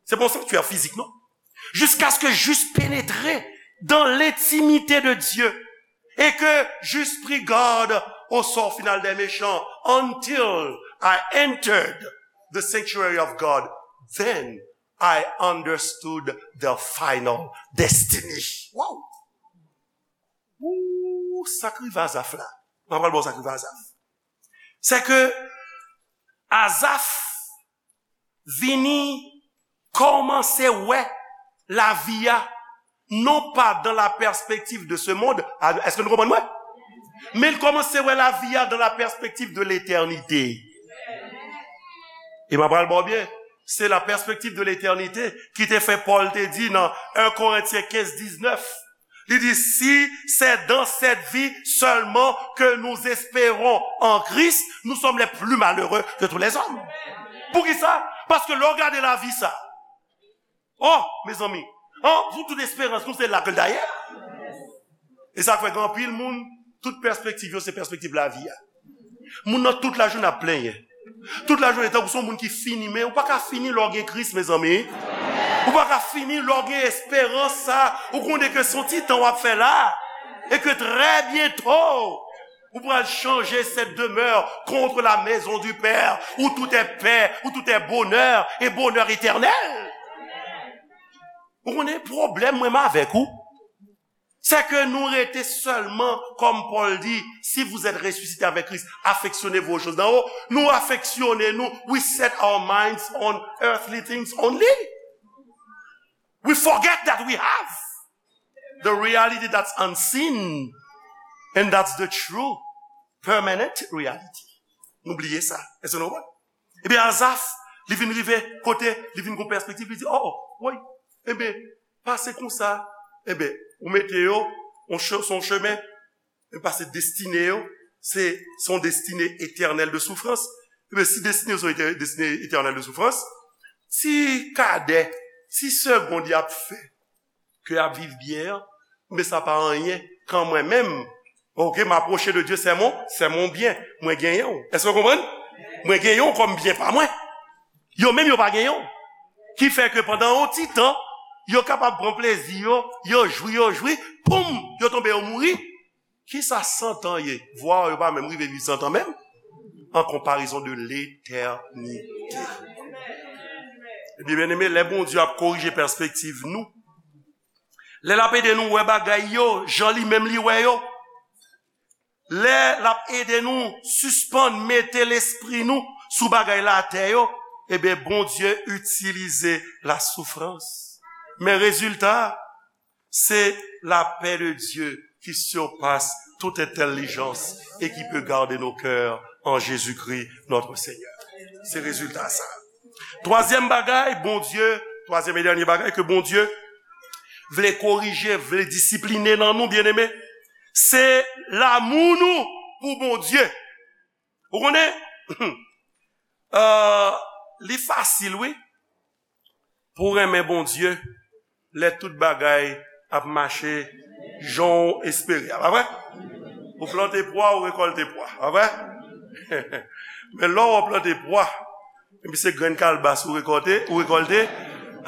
Se pa yon sanctuaire fizik, non. "Jusqu'à ce que j'eusse pénétré dans l'intimité de Dieu et que j'eusse pris garde au sort final des méchants, until I entered the sanctuary of God, then I understood the final destiny." Wow! Ooh, sa k rive Azaf la. Mwen pral ba w sa k rive Azaf. Se ke Azaf vini kòmanse wè lavi a Non pas dans la perspective de ce monde. Èske nou konprann mwen? Men l kòmanse wè lavi a dans la perspective de l'éternité. E m ap pral ba w byen, se la perspective de l'éternité ki te fè Pòl te di nan un Corinthiens quinze dix-neuf, li di, si c'est dans cette vie seulement que nous espérons en Christ, nous sommes les plus malheureux de tous les hommes. Poukisa? Paske lè w gade lavi sa, oh, mezanmi, oh, pou tout esperans nou se la ke l dayè. E sa k fè gen anpil moun, tout pèspektiv yo se pèspektiv lavi a. Moun nan tout lajounen ap plenyen. Tout lajounen tankou se yon moun ki fini, men ou pa ka fini lè w gen Kris, mezanmi. Ou pa ka fini lè w gen esperans sa. Ou konnen ke se yon ti tan w ap fè la. E ke trè byento, ou pral chanje cette demeure contre la maison du Père, où tout est paix, où tout est bonheur, et bonheur éternel. Ou konnen pwoblèm mwen avèk ou? Se ke nou rete sèlman, kòm Pòl di, si vous êtes ressuscité avec Christ, affectionnez-vous aux choses d'en haut. Nou afeksyone nou, we set our minds on earthly things only. We forget that we have the reality that's unseen, and that's the true permanent reality. Nou bliye sa. Èske nou konprann? Ebyen, Azaf, li vin rive kote, li vin gon pèspektiv, li di, oh, woy, ebyen, pase konsa, ebyen, ou mete yo, on che-, se yon chemen, e pase destine yo, se, se yon destine etènèl de soufrans. Ebyen, si destine yo se yon etè-, destine etènèl de soufrans, ti kadè, ti segond y ap fè, ke y ap viv byen an, men sa pa anyen kan mwen menm, ok, m apwoche de Dye, se mon, se mon byen, mwen genyen w. Èske w konprann? Mwen genyen w kòm byen pa mwen. Yo menm yo pa genyen w. Ki fè ke pandan yon ti tan, yo kapab pran plezi yo, yo jwi, yo jwi, poum, yo tonbe, yo mouri. Kisa san tan ye? Vwa yo pa menm rive viv san tan menm. En comparaison de l'éternité. Ebyen, byeneme, lè Bondye ap korije pèspektiv nou, lè l ap ede nou wè bagay yo jan li menm li wè yo, lè l ap ede nou sispann mete lespri nou sou bagay latè yo, ebyen, Bondye itilize la soufrans. Men rezilta, c'est la paix de Dieu qui surpasse toute intelligence et qui peut garder nos cœurs en Jésus-Christ notre Seigneur. Se rezilta sa. Twazyèm bagay, Bondye, twazyèm e dènye bagay ke Bondye vle korije, vle disipline nan nou, byeneme, se lanmou nou pou Bondye. Ou konnen, euh, li fasil, wi, pou w renmen Bondye, lè tout bagay ap mache jan w espere a, pa vre? Ou plante pwa, ou rekòlte pwa, pa vre? Men lè w plante pwa, epi se grenn kalbas ou rekòlte, ou rekòlte,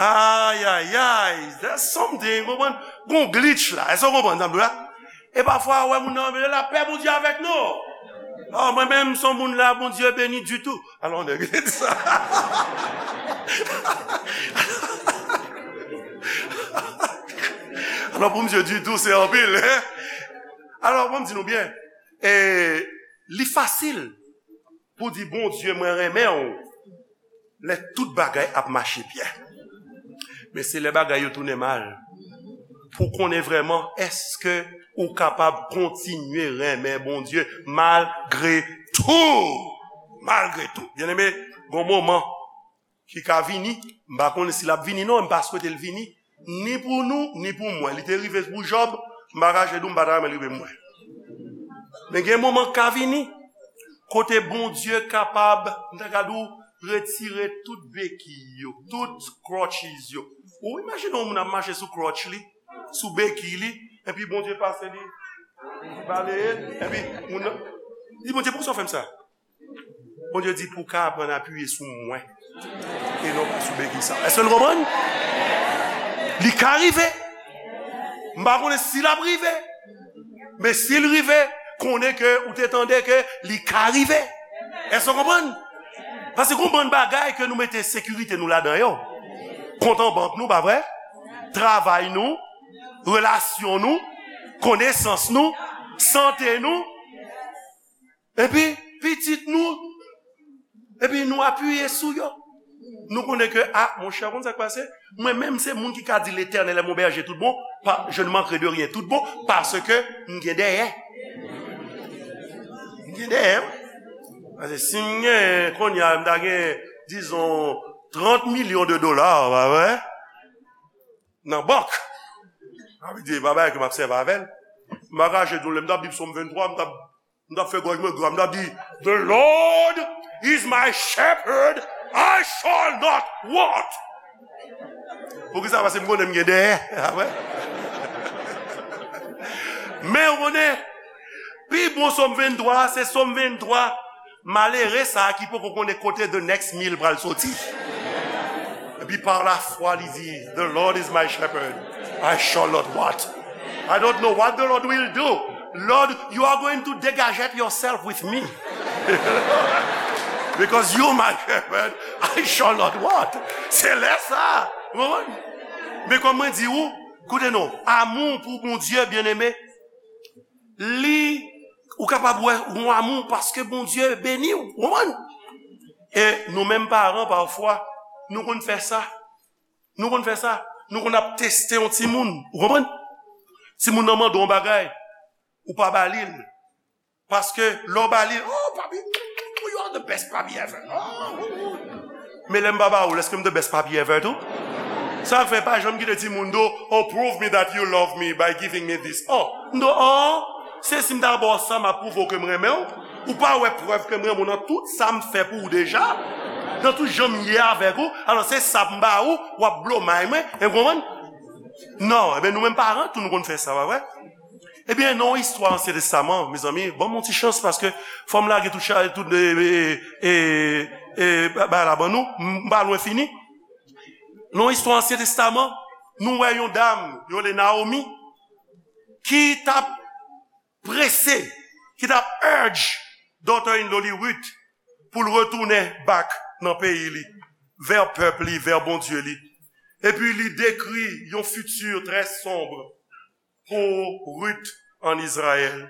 ayayay, there's something, konprann? Gon glitch la, èske w konprann sa m di w la? E pafwa, ou wè moun nan, men lapè Bondye avèk nou. Oh, mwen menm, m se yon moun la, Bondye beni ditou. Alò, nèg, li te di sa. Alò, pou misye ditou, se anpil, hein? Alò, bon, m di nou byen, e, li fasil pou di, Bondye, mwen renmen w, lè tout bagay ap mache byen. Men se lè bagay yo tounen mal pou w konnen vrèman èske ou kapab kontinye renmen Bondye malgre tou. Malgre tou. Byeneme, gon moman ki ka vini, m pa konnen si l ap vini non, m pa swete l vini, ni pou nou, ni pou mwen. Li te rive pou Jòb, m pa kache di w, m pa ta renmen l rive pou mwen. Men gen moman k ka vini, kote Bondye kapab, m ta ka di w, retire tout bekiy yo, tout crutches yo. Ou imajine yon moun ap mache sou crutch li, sou bekiy li, epi Bondye pase li, li baleye l, epi moun nan, li di, Bondye, poukisa w fè m sa? Bondye di, pou w ka aprann apiye sou mwen e non pa sou bekiy sa. Èske nou konprann? Li ka rive. M pa konnen si l ap rive. Men si l rive, konnen ke ou te tande ke li ka rive. Èske w konprann? Paske gon bann bagay ke nou mete sekirite nou ladan yo. Kont an bank nou, pa vre? Travay nou, relasyon nou, konesans nou, sante nou. Epi, pitit nou, epi nou apiye sou yo. Nou konnen ke, a, monchè, ou konn sa k pase? Mwen menm, se moun ki ka di, L'Éternel est mon berger tout bon, pa, je ne manquerai de rien tout bon, paske m gen dèyè. M gen dèyè, wi. Paske si m gen, kounye a, m ta gen, dizon, trant milyon de dola, pa vre? Nan bank. Sa vle di, pa bagay ke m ap sèvi avè l. M pa kache di w, lè m t ap li Sòm venntwa, m t ap, m t ap fè gòj mwen gra, m t ap di, "The Lord is my shepherd, I shall not want." Poukisa? Paske m konnen m gen dèyè. Apre. Men ou konnen, pi bon Sòm venntwa, se Sòm venntwa. Malere sa a ki poko konnen kote the next meal pral soti. Epi pa lafwa li di, "The Lord is my shepherd, I shall not want." I don't know what the Lord will do. Lord, you are going to dégagette yourself with me. Because you my shepherd, I shall not want. Se lè sa. Ou konprann? Men kòm mwen di ou, koute non, amou pou Bondye, byeneme, li, ou kapab wè yon amou paske Bondye beni w, ou konprann? E nou menm paran, pafwa, nou konn fè sa. Nou konn fè sa. Nou konn ap teste yon timoun, ou konprann? Timoun nan mande yon bagay, ou pa ba li l. Paske lè w ba li l, "Oh, papi, you are the best papi ever." Oh, oh, oh. Men lè m pa ba ou l, èske m the best papi ever tou? Sa fè pa janm kite timoun di w, "Oh, prove me that you love me by giving me this." Oh, m di w, "Oh, se si m ta ba w sa, m ap pwouve w ke m renmen w." Ou pa wè prèv ke m renmen w nan tout sa m fè pou ou deja? Nan tout jan m ye avèk ou? Alò, se sa m ba ou, w ap blow mind mwen, ou konprann? Non, ebyen, nou menm paran tou, nou konn fè sa, pa vre? Ebyen, nan yon istwa Ansyen Testaman, mezanmi, ban m yon ti chans, paske fò m lage tout, cha- tout, e, e, e, e, ba- bagay la ban nou, m pa lwen fini. Nan yon istwa Ansyen Testaman, nou wè yon dam, yo rele Naomi, ki t ap prese, ki t ap urge daughter-in-law li Ruth pou l retounen back nan peyi li, vè pèp li, vè Bondye li. Epi li dekri yon fiti trè sonb pou Ruth ann Izrayèl.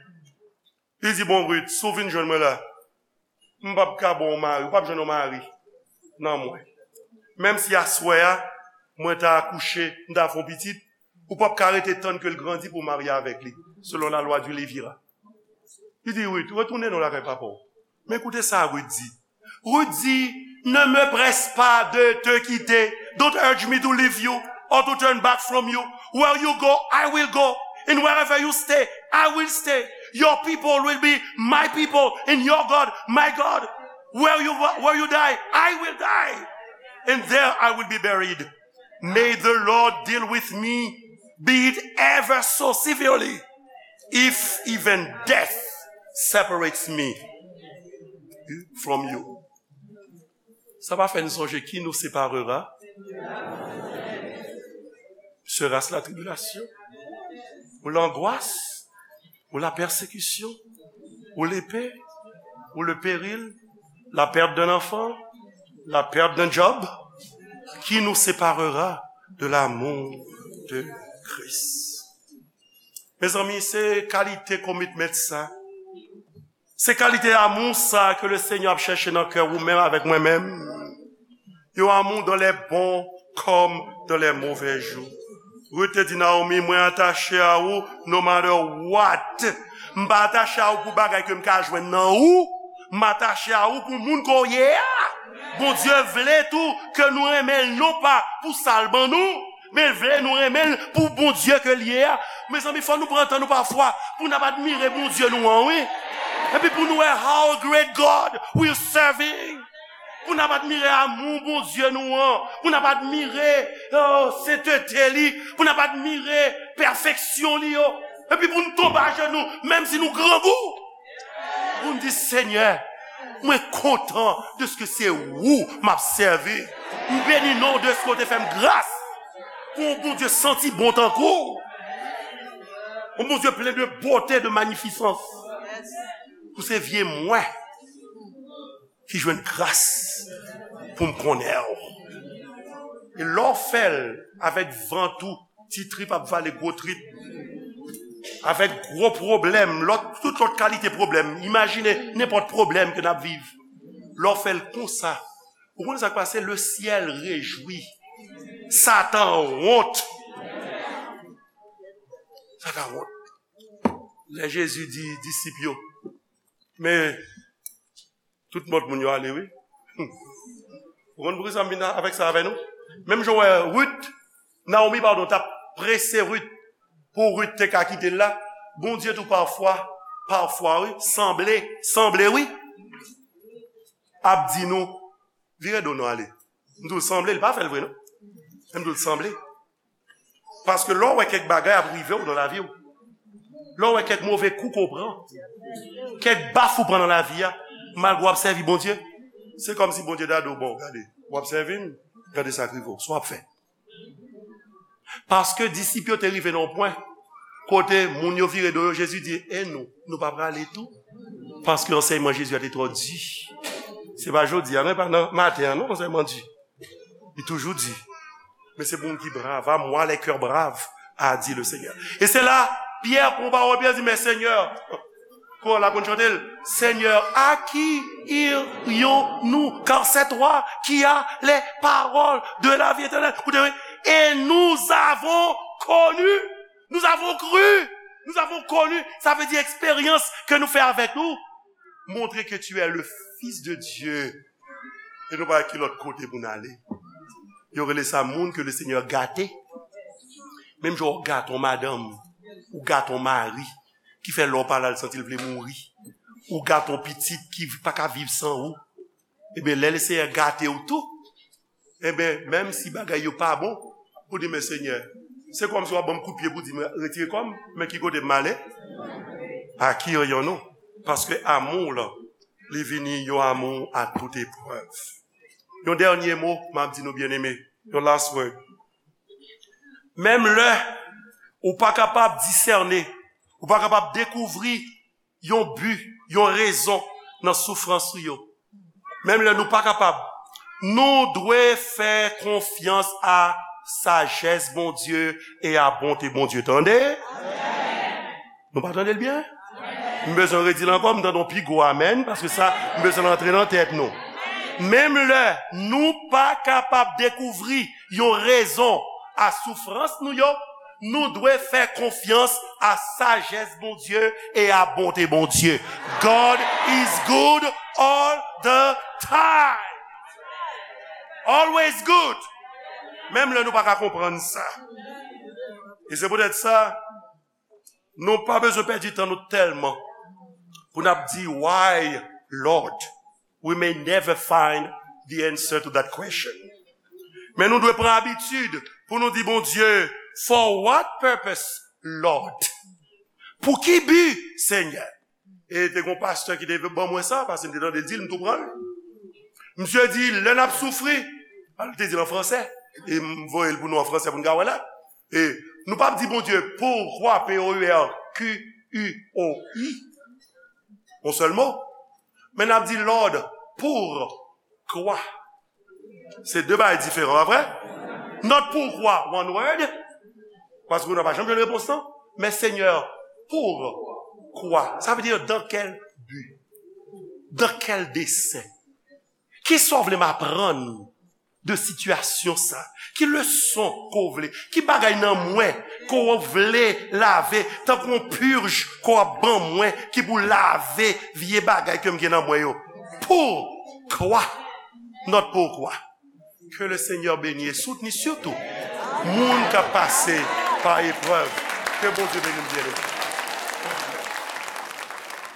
Li di, "Bon, Ruth, si w vin jwenn mwen la, m p ap ka ba w mari, ou p ap jwenn yon mari nan mwen. Menm si aswè a, mwen ta akouche, m ta fè yon pitit, ou p ap ka rete tann ke l grandi pou w marye avèk li, selon la loi du Lévira." Li di, "Ruth, retounen non lakay papa w." Men koute sa Ruth di. Ruth di, "Ne me presse pas de te quitter. Don't urge me to leave you or to turn back from you. Where you go, I will go. And wherever you stay, I will stay. Your people will be my people, and your God, my God. Where you, where you die, I will die. And there I will be buried. May the Lord deal with me, be it ever so severely, if even death separates me from you." Sa pa fè n sonje qui nous séparera? Sera-ce la tribulation? Ou l'angoisse? Ou la persécution? Ou l'épée? Ou le péril? La perte d'un enfant? La perte d'un job? Qui nous séparera de l'amour de Christ? Mezanmi, se kalite commitment sa. Se kalite amou sa ke le Senyè ap chèche nan kè ou menm avèk mwen menm. Yon amou dans les bons comme dans les mauvais jours. Ruth te di Naomi, "Mwen atache a ou no matter what." M pa atache a ou pou bagay ke m ka jwenn nan ou. M atache a ou pou moun ke w ye a. Bondye vle tou ke nou renmen l non pa pou sa l ban nou, men l vle nou renmen l pou Bondye ke l ye a. Mezanmi, fò nou pran tan nou pafwa pou n ap admire Bondye nou an, wi. Epi pou nou wè how great God we serving. Pou n ap admire amou Bondye nou an. Pou n ap admire, oh, sentete li. Pou n ap admire pèfeksyon li yo. Epi pou n tonbe ajenou, menm si nou grangou. Pou n di, "Senyè, mwen kontan dèske se ou m ap sèvi. M beni non w dèske w te fè m gras." Pou yon Bondye santi bon tankou w. Yon Bondye plen de bote, de manifisans. Pou se vye mwen ki jwenn gras pou m konnen w. E lè w fè l avèk vant ou, ti trip ap vale gwo trip, avèk gwo pwoblèm, lòt, tout lòt kalite pwoblèm, imajine nenpòt pwoblèm ke n ap viv. Lè w fè l konsa, Ou konn sa k pase? Le syèl rejwi. Satan wont. Satan wont. Lè Jezi di disip yo, men tout lòt moun yo ale, wi. Ou konn poukisa m vin avèk sa avè nou? Menm jan w wè Rit, Naomi, padon, t ap prese Rit pou Rit te ka kite l la. Bondye tou pafwa, pafwa, wi, sanble, sanble, wi, ap di nou, vire do nou ale. M di w sanble, li pa fè l vre, non. Men m di w sanble. Paske lè w wè kèk bagay ap rive w nan lavi w, lè w wè kèk move kou ke w pran, kèk baf ou pran nan lavi a, malgre w ap sèvi Bondye, se kòmsi Bondye ta di w, bon, gade, w ap sèvi m, gade sa k rive w, sa w ap fè. Paske disip yo te rive nan yon pwen kote moun yo vire do yo, Jezi di, e nou, nou pa prale tou? Paske ansèyman Jezi a te twò di. Se pa jodi a, non, e pa nan maten an, non, ansèyman di. Li toujou di. Men se pou moun ki brav, à moi les cœurs braves, a dit le Seigneur. E se la, Pyè pran pawòl, Pyè di, men Senyè, kò la konn chante l, Seigneur, à qui irions-nous? Car c'est toi qui as les paroles de la vie éternelle. Koute, wi. Et nous avons connu, nous avons cru, nous avons connu. Sa vle di eksperyans ke nou fè avèk ou montre que tu es le Fils de Dieu. E nou pa ki lòt kote pou n ale. Yo rele sa moun ke le Senyè gate. Menm jan w gate yon madanm, ou gate yon mari, ki fè lè w pa la, l santi l vle mouri. Ou gate yon pitit ki pa ka viv san ou. Ebyen, lè le Senyè gate w tou, ebyen, menm si bagay yo pa bon, ou di, men Senyè, se kòmsi w ap ban m kout pye pou di m retire kò m, men ki kote m ale? À qui irions-nous? Paske amou w lan, li vini yon amou à toute épreuve. Yon dènye mo, m ap di nou, byeneme, yon last word. Menm lè ou pa kapab disène, ou pa kapab dekouvri yon bi, yon rezon nan soufrans ou yo. Menm lè nou pa kapab, nou dwe fè konfyans a sajès Bondye e a bonte Bondye. Tande? Nou pa tande l byen? M bezwen redi l ankò, m tande yon pi gwo amèn, paske sa, m bezwen l antre nan tèt nou. Menm lè nou pa kapab dekouvri yon rezon a soufrans nou yo, nou dwe fè konfyans a sajès Bondye e a bonte Bondye. God is good all the time. Always good. Menm lè nou pa ka konprann sa. E se poutèt sa, nou pa bezwen pèdi tan nou tèlman pou n ap di, why, Lord? We may never find the answer to that question. Men nou dwe pran abitid pou nou di Bondye, for what purpose, Lord? Pou ki bi, Senyè? E te gen yon pastè ki te ban mwen sa, paske m te tande l di l, m tou pran l. Misye di, lè n ap soufri, al te di l an fransè, e m voye l pou nou an fransè pou n ka wè la. E nou p ap di Bondye, pourquoi, P O U R Q U O I, yon sèl mo. Men n ap di Lord, pourquoi. Se de bagay diferan, pa vre? Not pourquoi, one word, paske nou pa janm jwenn repons lan. Men Senyè, pourquoi? Sa vle di, dans quel but? Dans quel dessein? Kisa w vle m aprann de sitiyasyon sa? Ki leson ke w vle? Ki bagay nan mwen ke w vle lave, tankou yon purj ke w ap ban mwen, ki pou lave vye bagay ke m gen nan mwen yo? Pourquoi? Not pourquoi. Que le Seigneur bénisse et soutenir surtout moun k ap pase pa eprèv. Que Bondye beni w, byeneme.